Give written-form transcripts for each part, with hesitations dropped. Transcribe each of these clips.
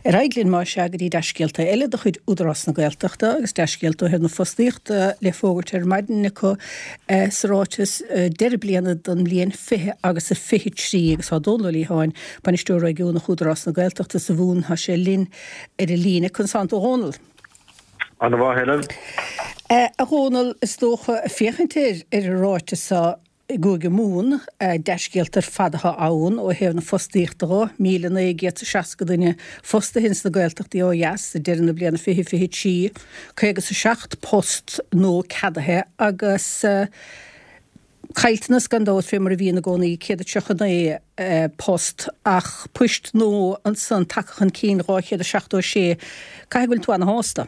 Ar aghaidh linn, más ea, go dtí dea-scéalta eile de chuid Údarás na Gaeltachta agus dea-scéalta ó thaobh na fostaíochta le fógairt ar maidin acu sa ráiteas deireadh bliana don mbliain 20 agus a 23 agus tá Dónal Ó Liatháin, Bainisteoir Réigiúnach Údarás na Gaeltachta sa Mhumhain, tá sé linn ar an líne. Conas tánn tú a Dhónaill? Ana mhaith, Helen. A Dhónaill, is dócha, féachaint ar ar an ráiteas seo i gCúige Mumhan, dea-scéalta ar fad atá ann ó thaobh na fostaíochta dho, 1,960 duine fostaithe ins na Gaeltachtaí ó dheas ag deireadh na bliana 2023, 57 post nua ceadaithe agus caillteanas gan dabht fé mar a bhíonn i gcónaí, 139 post ach poist nua ansan tagtha chun cinn, 276. Caithfidh go bhfuil tú ana-shásta?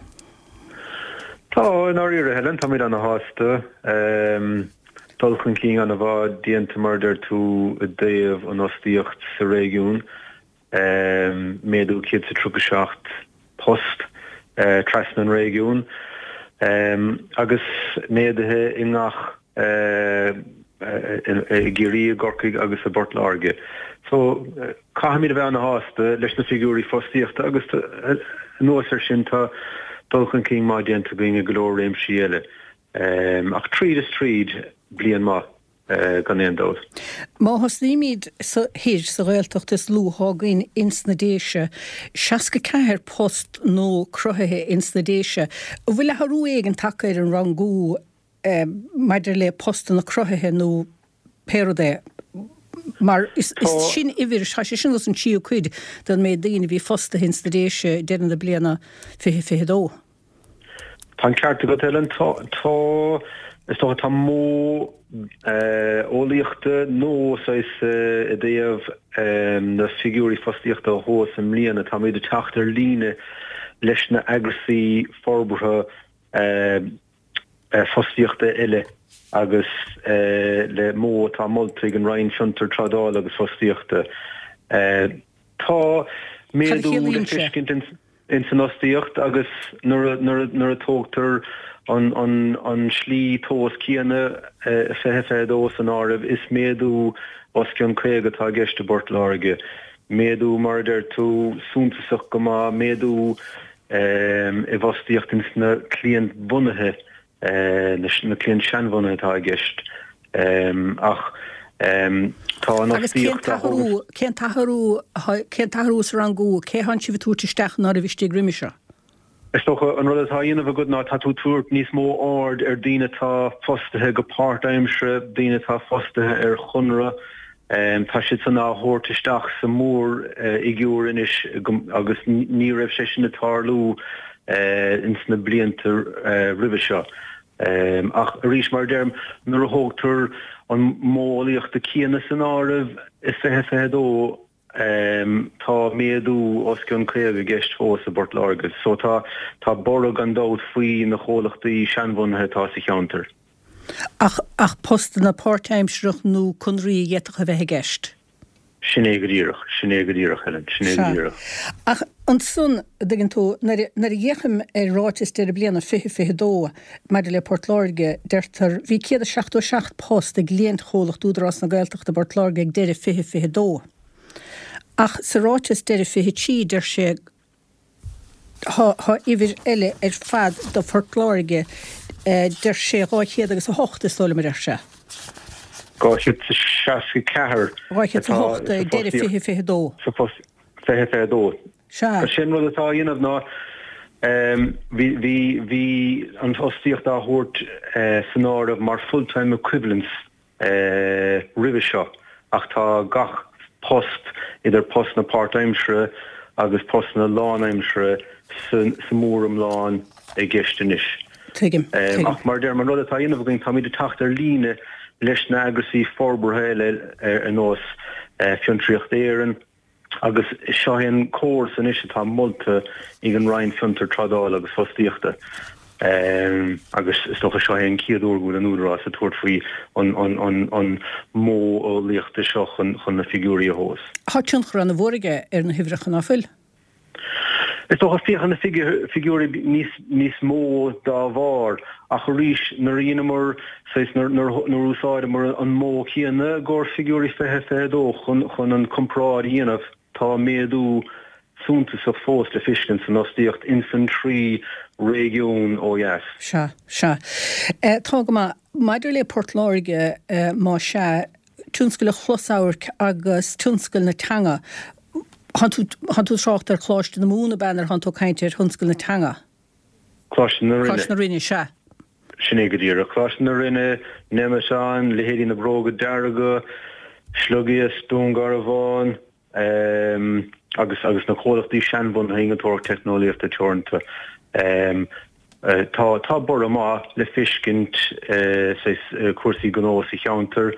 Tá, i ndáiríre, Helen, táimid ana-shásta. Dul chun cinn an-mhaith déanta, mar a deir tú, i dtaobh an fhostaíocht sa réigiún, méadú 137 post trasna an réigiúin agus méaduithe i ngach, i gCiarraí, i gCorcaigh agus i bPort Láirge. So, caithfimid a bheith ana-shásta leis na figiúirí fostaíochta agus anuas air sin tá dul chun cinn maith déanta againn i go leor réimsí eile. Ach tríd is tríd, bliain maith gan aon dabht. Má thosnaímid sa thoir, sa Ghaeltacht is lú atá againn ins na Déise, 64 post nua cruthaithe ins na Déise. An bhfuil athrú éigin tagtha ar an rangú maidir le postanna cruthaithe nó pé rud é? Mar is sin uimhir, tá sé sin os an tríú cuid den méid daoine a bhí fostaithe ins na Déise ag deireadh na bliana 2022. Tá an ceart agat, Helen. Tá, tá, is dócha, tá modh eolaíochta nua saghas i dtaobh na figiúirí fostaíochta a thomhas i mbliana. Táimid ag teacht ar líne leis na eagrasaí forbartha fostaíochta eile agus le modh atá molta ag an Roinn Fiontar, Trádála agus Fostaíochta. Tá méadú le feiscint ins an fhostaíocht agus nuair a tógtar an slí tomhas céanna, 2022 san áireamh, is méadú os cionn 50 atá i gceist i bPort Láirge. Méadú, mar a deir tú, suntasach go maith, méadú i bhfostaíocht ins na cliantbhunaithe na cliaint seanbhunaithe atá i gceist ach tá an Agus cén fhostaíocht á t-athrú, cén t-athrú, cén t-athrú sa rangú, cé thánn sibh ag tabhairt isteach ná raibh istigh roimhe seo? Is dócha an rud atá á dhéanamh agat ná tá tú ag tabhairt níos mó aird ar daoine atá fostaithe go páirtaimseartha, daoine atá fostaithe ar chonradh, tá siad san á thabhairt isteach sa mhórfhigiúr anois agus ní raibh sé sin ag tarlú ins na blianta roimhe seo. Ach arís, mar a deirim, nuair a thógtar an modh eolaíochta céanna san áireamh i 2022, tá méadú os cionn 50 i gceist fós i bPort Láirge. So tá tá borradh gan dabht faoi na chomhlachtaí seanbhunaithe atá sa cheantar. Ach ach postanna páirtaimsearach nó conraí a d'fhéadfadh a bheith i gceist? Sin é go díreach, sin é go díreach, Helen, sin é go díreach. Ach ansan, a dtuigeann tú, nuair a, nuair a fhéachaim ar ráiteas deireadh bliana 2022 maidir le Port Láirge, deirtear, bhí 177 post ag cliantchomhlacht Údarás na Gaeltachta i bPort Láirge ag deireadh 2022. Ach sa ráiteas deireadh 23 deir sé, Tá uimhir eile ar fad do Phort Láirge, deir sé 200 agus 8 is dóigh liom a deir sé. 264 atá 208 ag deireadh 2022. Sa phost 2022. Sea. Sin rud atá á dhéanamh ná bhí bhí bhí an fhostaíocht á thabhairt san áireamh mar full-time equivalents roimhe seo ach tá gach post, idir postanna páirtaimseartha agus postanna lánaimseartha sa mhóriomlán i gceist anois. Tuigim. Tuigim. Ach mar a deirim, an rud atá á dhéanamh againn, táimid ag teacht ar líne leis na eagrasaí forbartha eile ar nós Fiontraíocht Éireann, Agus seo é an córas anois atá molta ag an Roinn Fiontar, Trádála agus Fostaíochta agus is dócha seo é an chéad uair go bhfuil an Údarás ag tabhairt faoi an modh eolaíochta seo chun na figiúirí a thomhas. Tá tionchar an-mhór aige ar na huimhreacha, ná fuil? Is dócha, féachann na figiúirí níos mó dá bharr, ach arís, nuair a dheineamar, saghas, nuair a úsáideamar an modh céanna i gcomhair figiúirí 2022 chun an comparáid a dhéanamh, tá méadú suntasach fós le feiscint san fhostaíocht ins an 3 réigiún ó dheas. Sea, sea. Tá go maith. Maidir le Port Láirge, más ea, tionscal an chlosamhairc agus tionscal na teanga, thánn tú, thánn tú ag trácht ar Choláiste na Mumhan ab ea nuair thánn tú ag caint ar thionscal na teanga? Coláiste na Rinne. Coláiste na Rinne, sea. Sin é go díreach. Coláiste na Rinne, Nemeton, leithéidí na Bróga Dearga, Sliogiasc, Dún Garbhán, agus agus na comhlachtaí seanbhunaithe Innealtóireacht Teicneolaíochta Teoranta. Tá tá borradh maith le feiscint saghas cúrsaí gnó sa cheantar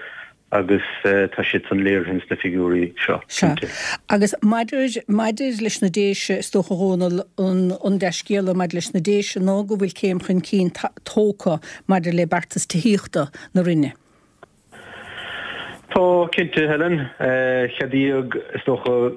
agus tá siad san léirithe ins na figiúirí seo, Sea. cinnte. Agus maidir, maidir leis na Déise, is dócha, a Dhónaill, an, an dea-scéala maidir leis na Déise ná go bhfuil céim chun cinn tógtha maidir le beartas tithíochta na Roinne. Tá, cinnte, Helen. Ceadaíodh, is dócha,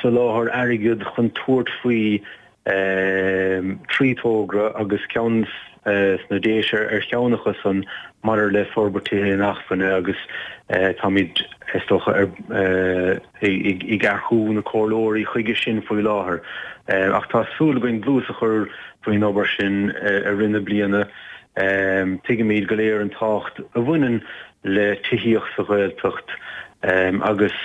soláthar airgid chun tabhairt faoi thrí togra agus ceann sna Déise ar cheann acu san maidir le forbairt tithe inacmhainne agus táimid, is dócha, ag earcú na comhairleoirí chuige sin faoi láthair. Ach tá súil againn dlús a chur faoin obair sin i rith na bliana. Tuigimid go léir an tábhacht a bhaineann le tithíocht sa Ghaeltacht agus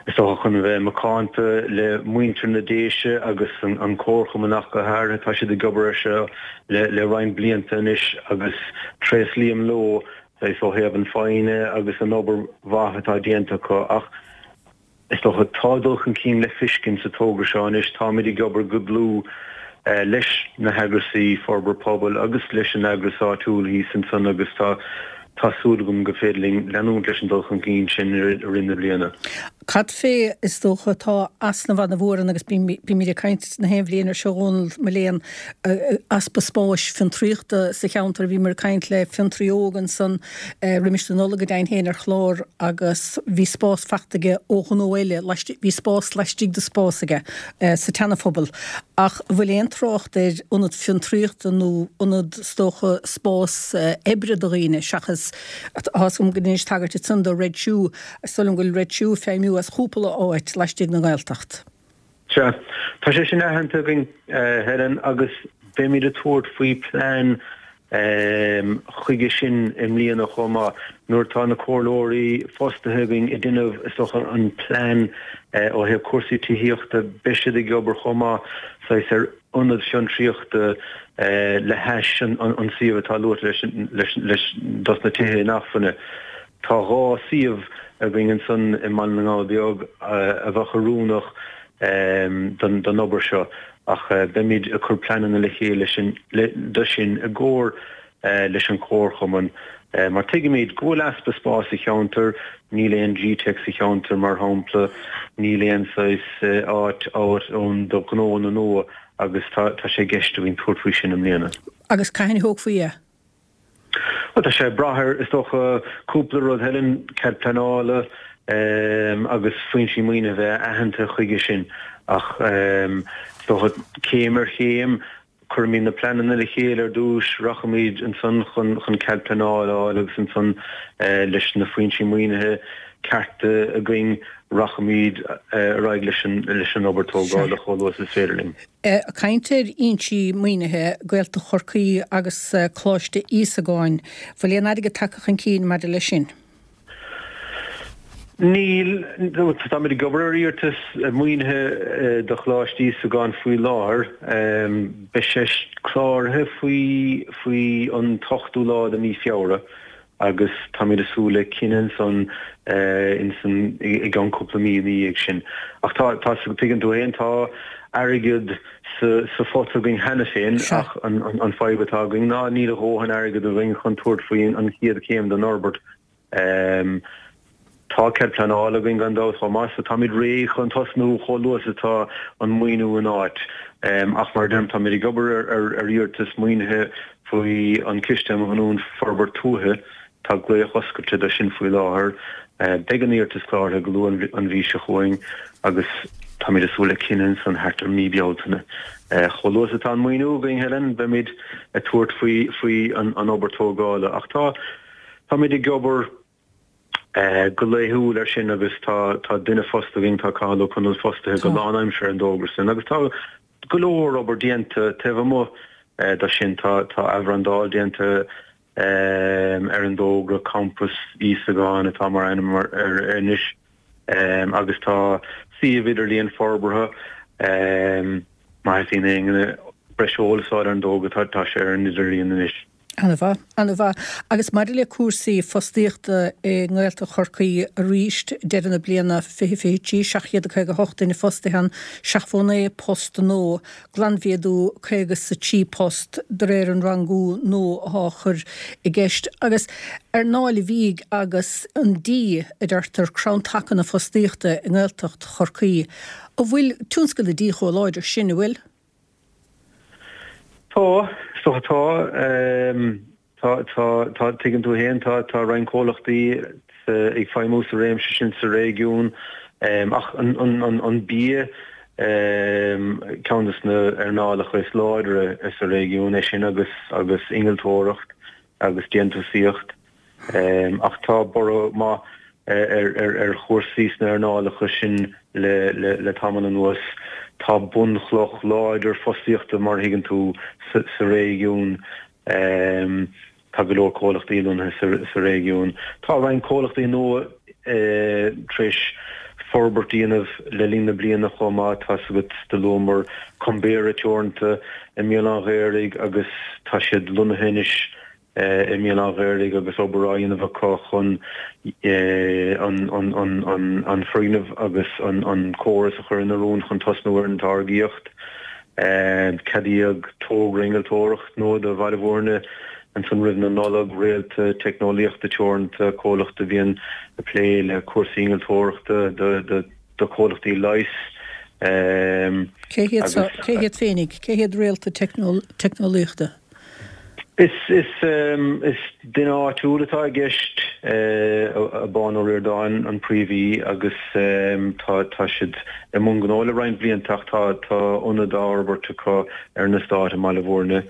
is dócha chun a bheith macánta le muintir na Déise agus an Comharchumann ach go háirithe, tá siad ag obair air seo le roinnt blianta anois agus tréaslaím leo saghas ó thaobh an foighne agus an obair mhaith atá déanta acu ach Is dócha, tá dul chun cinn le feiscint sa togra seo anois. Táimid ag obair go dlúth leis na heagrasaí forbartha pobail agus leis an eagras áitiúil thíos ansan agus tá tá súil agam go féidir linn leanúint leis an dul chun cinn sin i rith na bliana. Cad fé, is dócha, tá easnamh ana-mhór ann agus bímid ag caint na haon bhliain ar seo, a Dhónaill, mo léan, easpa spáis fiontraíochta sa cheantar. Bhíomar ag caint le fiontraí óg ansan roimis na Nollag go deimhin féin ar chlár agus bhí spás fachta aige ó ghnó eile, bhí spás laistigh de spás aige sa tSeana-Phobal. Ach an bhfuil aon trácht ar ionad fiontraíochta nó ionad, is dócha, spás oibre do dhaoine seachas, tá 'fhios agam go ndeinis tagairt ansan do Red Shoe, is dóigh liom go bhfuil Red Shoe ag feidhmiú as chúpla áit laistigh den Ghaeltacht. Sea, tá sé sin aitheanta againn, Helen, agus beimid ag tabhairt faoi plean chuige sin i mbliana chomh maith. Nuair atá na comhairleoirí fostaithe againn ag déanamh, is dócha, an plean ó thaobh cúrsaí tithíochta, beidh siad ag obair chomh maith saghas ar ionad fiontraíochta le hais an suíomh atá luaite leis dos na tithe inacmhainne. Tá 2 suíomh againn ansan i mBaile na nGall Beag a bheadh oiriúnach don obair seo ach beimid ag cur pleananna le chéile do sin i gcomhar leis an Chomharchumann mar tuigimid go bhfuil easpa spáis sa cheantar, níl aon GTeic sa cheantar mar shampla, níl aon saghas áit ann do ghnóanna nua agus tá sé i gceist againn tabhairt faoi sin i mbliana. Agus cathain a thógfaí é? Bhuel, tá sé ag brath ar, is dócha, cúpla rud, Helen, cead pleanála agus foinsí maoinithe a bheith aitheanta chuige sin. Ach is dócha, céim ar chéim, cuirfimid na pleananna le chéile ar dtús, rachaimid ansan chun cead pleanála a fháil agus ansan leis na foinsí maoinithe cearta againn, rachaimid ar aghaidh leis an obair tógála chomh luath is is féidir linn. Ag caint ar fhoinsí maoinithe, Gaeltacht Chorcaí agus Coláiste Íosagáin, bhfuil aon airgead tagtha chun cinn maidir leis sin? Níl. Táimid ag obair ar iarratas maoinithe do Choláiste Íosagáin faoi láthair. Beidh sé cláraithe faoi faoi an t-ochtú lá de mhí Feabhra. agus táimid ag súil le cinneadh ansan insan i gceann cúpla mí ina dhiaidh sin. Ach tá, tá, tuigeann tú fhéin, tá airgead sa, sa phota againn cheana féin ach an, an, an fadhb atá againn ná níl a dhóthain airgead againn chun tabhairt faoi an chéad chéim den fhorbairt. Tá cead pleanála againn gan dabht chomh maith so táimid réidh chun tosnú chomh luath is atá an maoiniú in áit. Ach mar a deirim, táimid ag obair ar iarratas maoinithe faoi an Ciste um Ghiniúint Forbairt Tuaithe. Tá glaoch oscailte do sin faoi láthair. Beidh an iarratas cláraithe go luath an mhí seo chugainn agus táimid ag súil le cinneadh ansan thart ar mí Bealtaine. Chomh luath is atá an maoiniú againn, Helen, beimid ag tabhairt faoi an obair tógála. Ach tá. Táimid ag obair. Go laethúil air sin agus tá tá duine fostaithe againn, tá Cathal Ó Conaill fostaithe go lánaimseartha ar an dtogra sin agus tá go leor obair déanta taobh amuigh de sin. Tá tá athbhrandáil déanta ar an dtogra, Campas Íosagáin atá mar ainm air anois agus tá suíomh idirlíon forbartha. Má theastaíonn ó éinne breis eolais a fháil ar an dtogra tá sé ar an idirlíon anois. Ana-mhaith, ana-mhaith. Agus maidir le cúrsaí fostaíochta i nGaeltacht Chorcaí arís, deireadh na bliana 2023, 758 duine fostaithe ann, 79 post nua, glanmhéadú 53 post de réir an rangú nua atá á chur i gceist. Agus earnáil an bhídh agus an dí, a deirtear, crann taca na fostaíochta i nGaeltacht Chorcaí. An bhfuil tionscal an dí chomh láidir sin, an bhfuil? Tá, is dócha tá. Tá, tá, tá, tuigeann tú féin, tá, tá roinnt comhlachtaí ag feidhmiú sa réimse sin sa réigiún ach an, an, an, an bia ceann de na earnálacha is láidre sa réigiún é sin agus, agus innealtóireacht agus déantúsaíocht. Ach tá borradh maith ar chúrsaí sna hearnálacha sin le tamall anuas. Tá bunchloch láidir fostaíochta, mar a thuigeann tú, sa réigiún. Tá go leor comhlachtaí lonnaithe sa réigiún. Tá roinnt comhlachtaí nua tar éis forbairt a dhéanamh le linn na bliana chomh maith. Tá's agat, do luamar Cumbera Teoranta i mBéal an Ghaorthaidh agus tá siad lonnaithe anois i mBéal an Ghaorthaidh agus obair á dhéanamh acu chun an foirgneamh agus an córas a chur in oiriúint chun tosnú ar an táirgíocht. Ceadaíodh togra innealtóireachta nua do Bhaile Bhúirne ansan roimh na Nollag, Réalta Teicneolaíochta Teoranta, comhlacht a bhíonn ag plé le cúrsaí innealtóireachta do do chomhlachtaí leighis Cé hiad seo, cé hiad féinig, cé hiad Réalta Teicneolaíochta? Is duine áitiúil atá i gceist, Abán Ó Ríordáin an príomhaí agus tá siad i mbun gnó le roinnt blianta ach tá ionad á fhorbairt acu ar an eastát i mBaile Bhúirne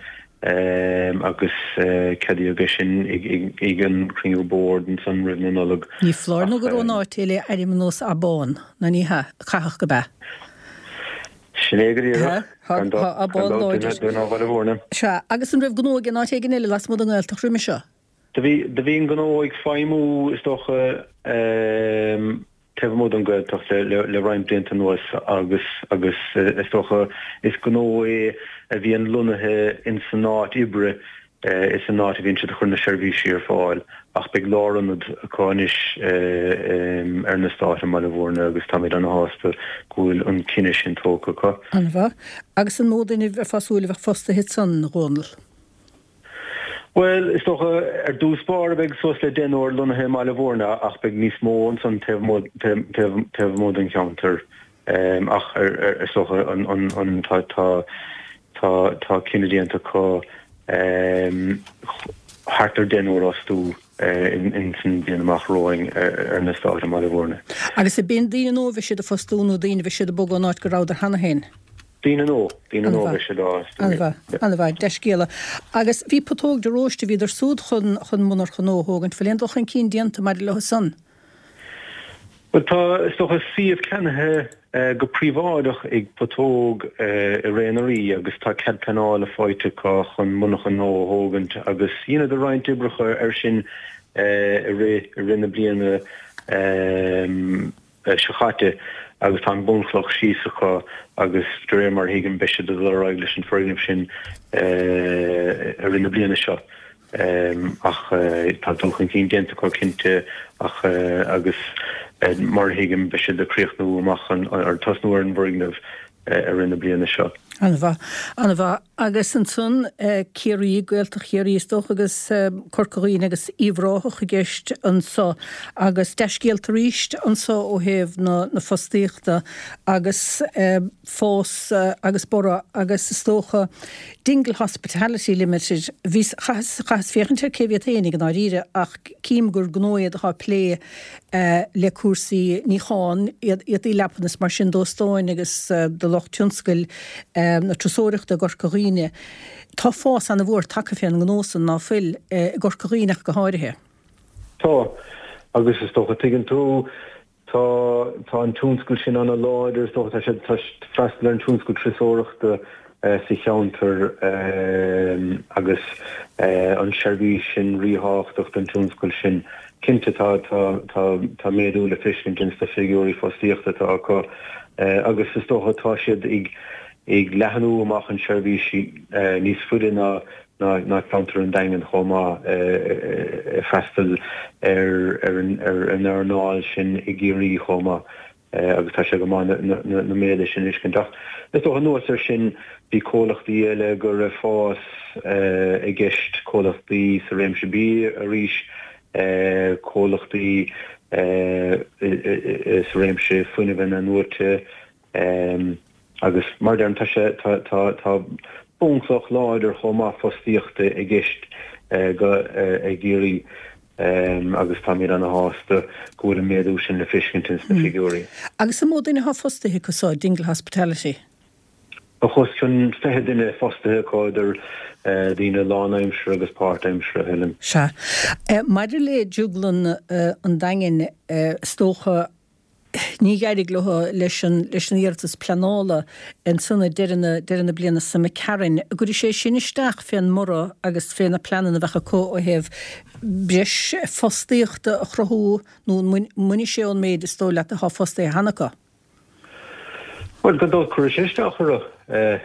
agus ceadaíodh é sin ag an chruinniú boird ansan roimh na Nollag. Ní foláir nó gur ón áit é le ainm ar nós Abán, nó ní hea? Caithfidh gurb ea. Sin é go díreach. Gan dabht duine ó Bhaile Bhúirne. Sea, agus an raibh gnó aige in áit éigin eile lasmuigh den nGaeltacht roimhe seo? Do bhí, do bhí an gnó ag feidhmiú, is dócha, taobh amuigh den Ghaeltacht le, le roinnt blianta anuas agus, agus is dócha, is gnó é a bhíonn lonnaithe in san áit oibre Is san áit a bhíonn siad ag cur na seirbhísí ar fáil ach beidh lárionad acu anois ar an eastát i mBaile Bhúirne agus táimid ana-shásta go bhfuil an cinneadh sin tógtha acu. An-mhaith. Agus an mó duine a bheifeá ag súil a bheadh fostaithe ansan, a Dhónaill? Bhuel, is dócha, ar dtús báire beidh suas le deichniúr lonnaithe i mBaile Bhúirne ach beidh níos mó ansan taobh amuigh den cheantar. Ach is dócha an tá tá tá cinneadh déanta acu thart ar deichniúr a fhostú in san bhliain amach romhainn ar an eastát i mBaile Bhúirne. Agus ab in daoine nua a bheidh siad a fostú nó daoine a bheidh siad ag bogadh ón áit go rabhadar cheana féin? Daoine nua, daoine nua a bheidh siad á fhostú. An-mhaith, an-mhaith, dea-scéala. Agus bhí Putóg de Róiste, bhíodar súd chun chun monarcha nua a thógaint, bhfuil aon dul chun cinn déanta maidir leo san? Bhuel, tá, is dócha, suíomh ceannaithe go príobháideach ag Putóg i Ré na Rí agus tá cead pleanála faighte acu chun monarcha nua a thógaint agus dheineadar roinnt oibreacha air sin i rith i rith na bliana seo chaite agus tá an bunchloch síos acu agus de réir mar a thuigim beidh siad ag dul ar aghaidh leis an foirgneamh sin i rith na bliana seo. Ach tá dul chun cinn déanta acu cinnte ach agus mar a thuigim beidh siad ag críochnú amach an, ar tosnú ar an bhfoirgneamh i rith na bliana seo. An-mhaith. An-mhaith. Agus ansan Ciarraí, Gaeltacht Chiarraí is dócha agus Corca Dhuibhne agus Uíbh Ráthach i gceist anso agus dea-scéalta arís anso ó thaobh na na fostaíochta agus fás agus borradh agus is dócha Dingle Hospitality Limited, bhíos, chaitheas, chaitheas féachaint ar cé hiad féinig i ndáiríre ach cím gur gnó iad atá ag plé le cúrsaí níocháin, éadaí leapan is mar sin d'óstáin agus do lucht tionscail na turasóireachta i gCorca Dhuibhne. Tá fás ana-mhór tagtha fén ngnó san, ná fuil, i gCorca Dhuibhne ach go háirithe. Tá. Agus is dócha, tuigeann tú, tá, tá an tionscal sin ana-láidir, is dócha, tá sé, tá freastal ar an tionscal turasóireachta sa cheantar agus an seirbhís sin ríthábhachtach don tionscal sin. Cinnte tá, tá, tá, tá méadú le feiscint ins na figiúirí fostaíochta atá acu agus is dócha tá siad ag, ag leathnú amach an seirbhís níos faide ná ná ceantar an Daingin chomh maith, ag freastal ar an earnáil sin i gCiarraí chomh maith agus tá sé go maith na méaduithe sin a fheiscint. Ach is dócha anuas air sin bhí comhlachtaí eile go raibh fás i gceist, comhlachtaí sa réimse bia arís, comhlachtaí sa réimse fuinnimh inathnuaite, Agus mar a deirim, tá sé, tá, tá, tá bunchloch láidir chomh maith fostaíochta i gceist go, i gCiarraí agus táimid ana-shásta go bhfuil an méadú sin le feiscint ins na figiúirí. Agus an mó duine atá fostaithe acu so, Dingle Hospitality? Tá os cionn 20 duine fostaithe acu, idir daoine lánaimseartha agus páirtaimseartha, Helen. Sea. Maidir le Drioglann an Daingin, is dócha, Ní d'éirigh leo leis an leis an iarratas pleanála ansan ag deireadh na deireadh na bliana seo imigh tharainn. An gcuirfidh sé sin isteach fén mborradh agus fé na pleananna a bheadh acu ó thaobh breis fostaíochta a chruthú nó an mbainfidh sé ón méid is dóigh leat atá fostaithe cheana acu? Bhuel, gan dabht cuirfidh sé isteach orthu,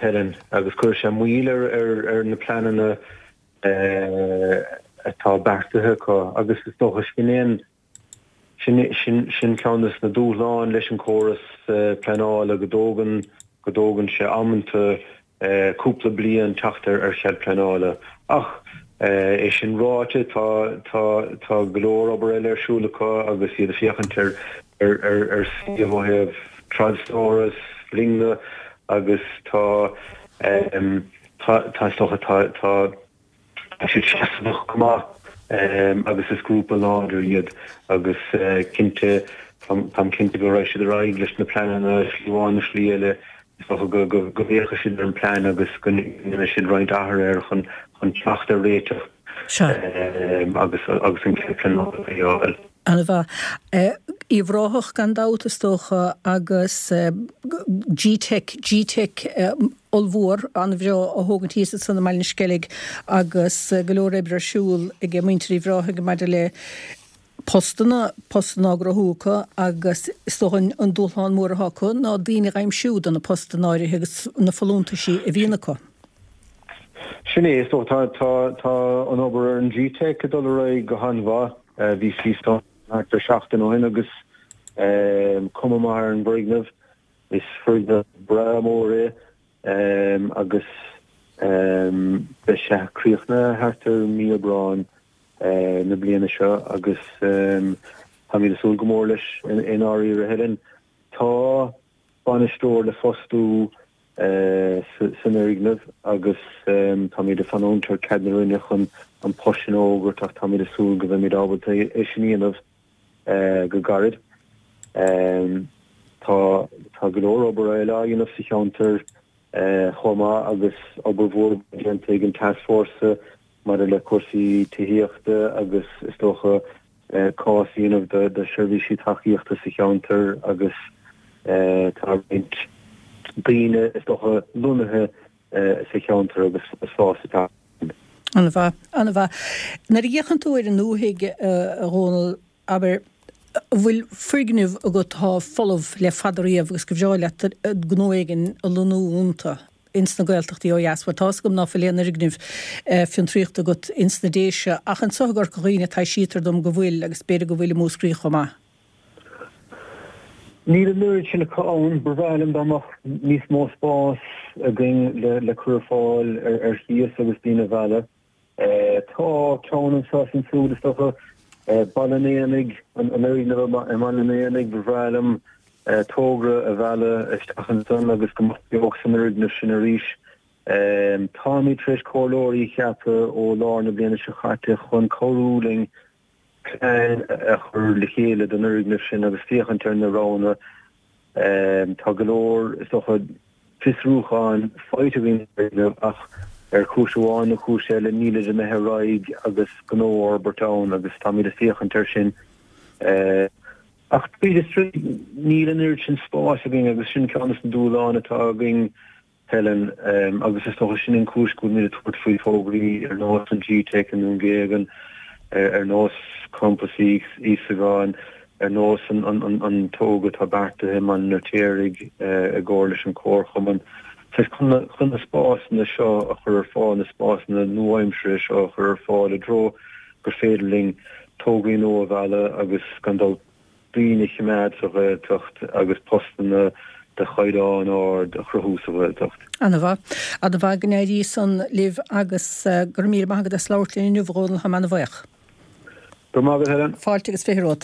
Helen, agus cuirfidh sé moill ar ar na pleananna atá beartaithe acu agus is dócha sin é an Sin sin ceann des na dúshláin leis an córas pleanála, go dtógann go dtógann sé amanta cúpla bliain teacht ar ar chead pleanála. Ach é sin ráite, tá tá tá go leor obair eile ar siúl acu agus iad ag féachaint ar ar ar ar suíomh ó thaobh trádstóras, loinge agus tá tá tá is dócha tá tá Tá siad seasmhach go maith agus is grúpa láidir iad agus cinnte, táim cinnte go raghaidh siad ar aghaidh leis na pleananna slí amháin nó slí eile. Is dócha go bhféachfaidh siad ar an bplean agus go ndéanfaidh siad roinnt athruithe air chun teacht ar réiteach agus agus an cead pleanála a fháil. An-mhaith. Uíbh Ráthach gan dabht is dócha agus G-Teic, G-Teic ollmhór, an-bhreá á thógaint thíos ansan i mBaile na Sceilg agus go leor oibre ar siúl ag muintir Uíbh Ráthaigh maidir le postanna, postanna á gcruthú acu agus is dócha an dúshlán mór atá acu ná daoine a aimsiú do na postanna áirithe agus na folúntaisí a bhíonn acu. Sin é, is dócha tá, tá, tá an obair ar an G-Teic ag dul ar aghaidh go han-mhaith. Bhíos thíos ann thart ar seachtain ó shin agus cuma maith ar an bhfoirgneamh. Is foirgneamh breá mór é agus beidh sé críochnaithe thart ar mí Aibreáin na bliana seo agus táimid ag súil go mór leis i ndáiríre, Helen. Tá bainisteoir le fostú san fhoirgneamh agus táimid ag fanúint ar cead na Roinne chun an post sin a fhógairt ach táimid ag súil go mbeimid ábalta é sin a dhéanamh go gairid. Tá tá go leor obair eile á dhéanamh sa cheantar chomh maith agus obair mhór déanta ag an Tascfhórsa maidir le cúrsaí tithíochta agus is dócha cás a dhéanamh do sheirbhísí tacaíochta sa cheantar agus tá roinnt daoine is dócha lonnaithe sa cheantar agus fás ag teacht. An-mhaith, an-mhaith. Nuair a fhéachann tú ar an ndúthaigh, a Dhónaill, abair, an bhfuil foirgnimh agat atá folamh le fada riamh agus gur bhreá leat gnó éigin a lonnú iontu ins na Gaeltachtaí ó dheas? Bhuel, tá's agam ná fuil aon fhoirgneamh fiontraíochta agat ins na Déise, ach anseo i gCorca Dhuibhne taibhsítear dom go bhfuil, agus b'fhéidir go bhfuil i Múscraí chomh maith. Níl an oiread sin acu ann. Ba bhreá liom dá mbeadh níos mó spás againn le cur ar fáil ar chíos agus daoine a mhealladh. Tá ceann anseo is ansiúd, is dócha, Baile an Éanaigh, an fhoirgneamh i mBaile an Éanaigh, ba bhreá liom togra a mhealladh isteach ansan agus go mbeadh beocht san fhoirgneamh sin arís. Táimid tar éis comhairleoirí a cheapadh ó lár na bliana seo caite chun cabhrú linn plean a chur le chéile don fhoirgneamh sin agus féachaint ar na roghanna. Tá go leor, is dócha, fiosrúcháin faighte againn ar an bhfoirgneamh ach ar chúis amháin nó cúis eile nílid imithe ar aghaidh agus gnó a fhorbairt ann agus táimid ag féachaint air sin. Ach tríd is tríd, níl an oiread sin spáis againn agus sin ceann de na dúshláin atá againn, Helen, agus is dócha sin an chúis go bhfuilimid ag tabhairt faoi thograí ar nós an G-Teic i nDún Géagan, ar nós Campas Íosagáin, ar nós an togra atá beartaithe i mBaile an Fheirtéaraigh i gcomhar leis an Chomharchumann. Saghas chun na spásanna seo a chur ar fáil, na spásanna nua-aimseartha seo a chur ar fáil i dtreo gur féidir linn tograí nua a mhealladh agus gan dabht daoine a choimeád sa Ghaeltacht agus postanna de chaighdeán ard a chruthú sa Ghaeltacht. Ana-mhaith. Ana-mhaith. Go n-éirí san libh agus go raibh míle maith agat as labhairt linn inniu, a Dhónaill. Táim ana-bhuíoch. Go raibh maith agat, Helen. Fáilte agus 20 romhat.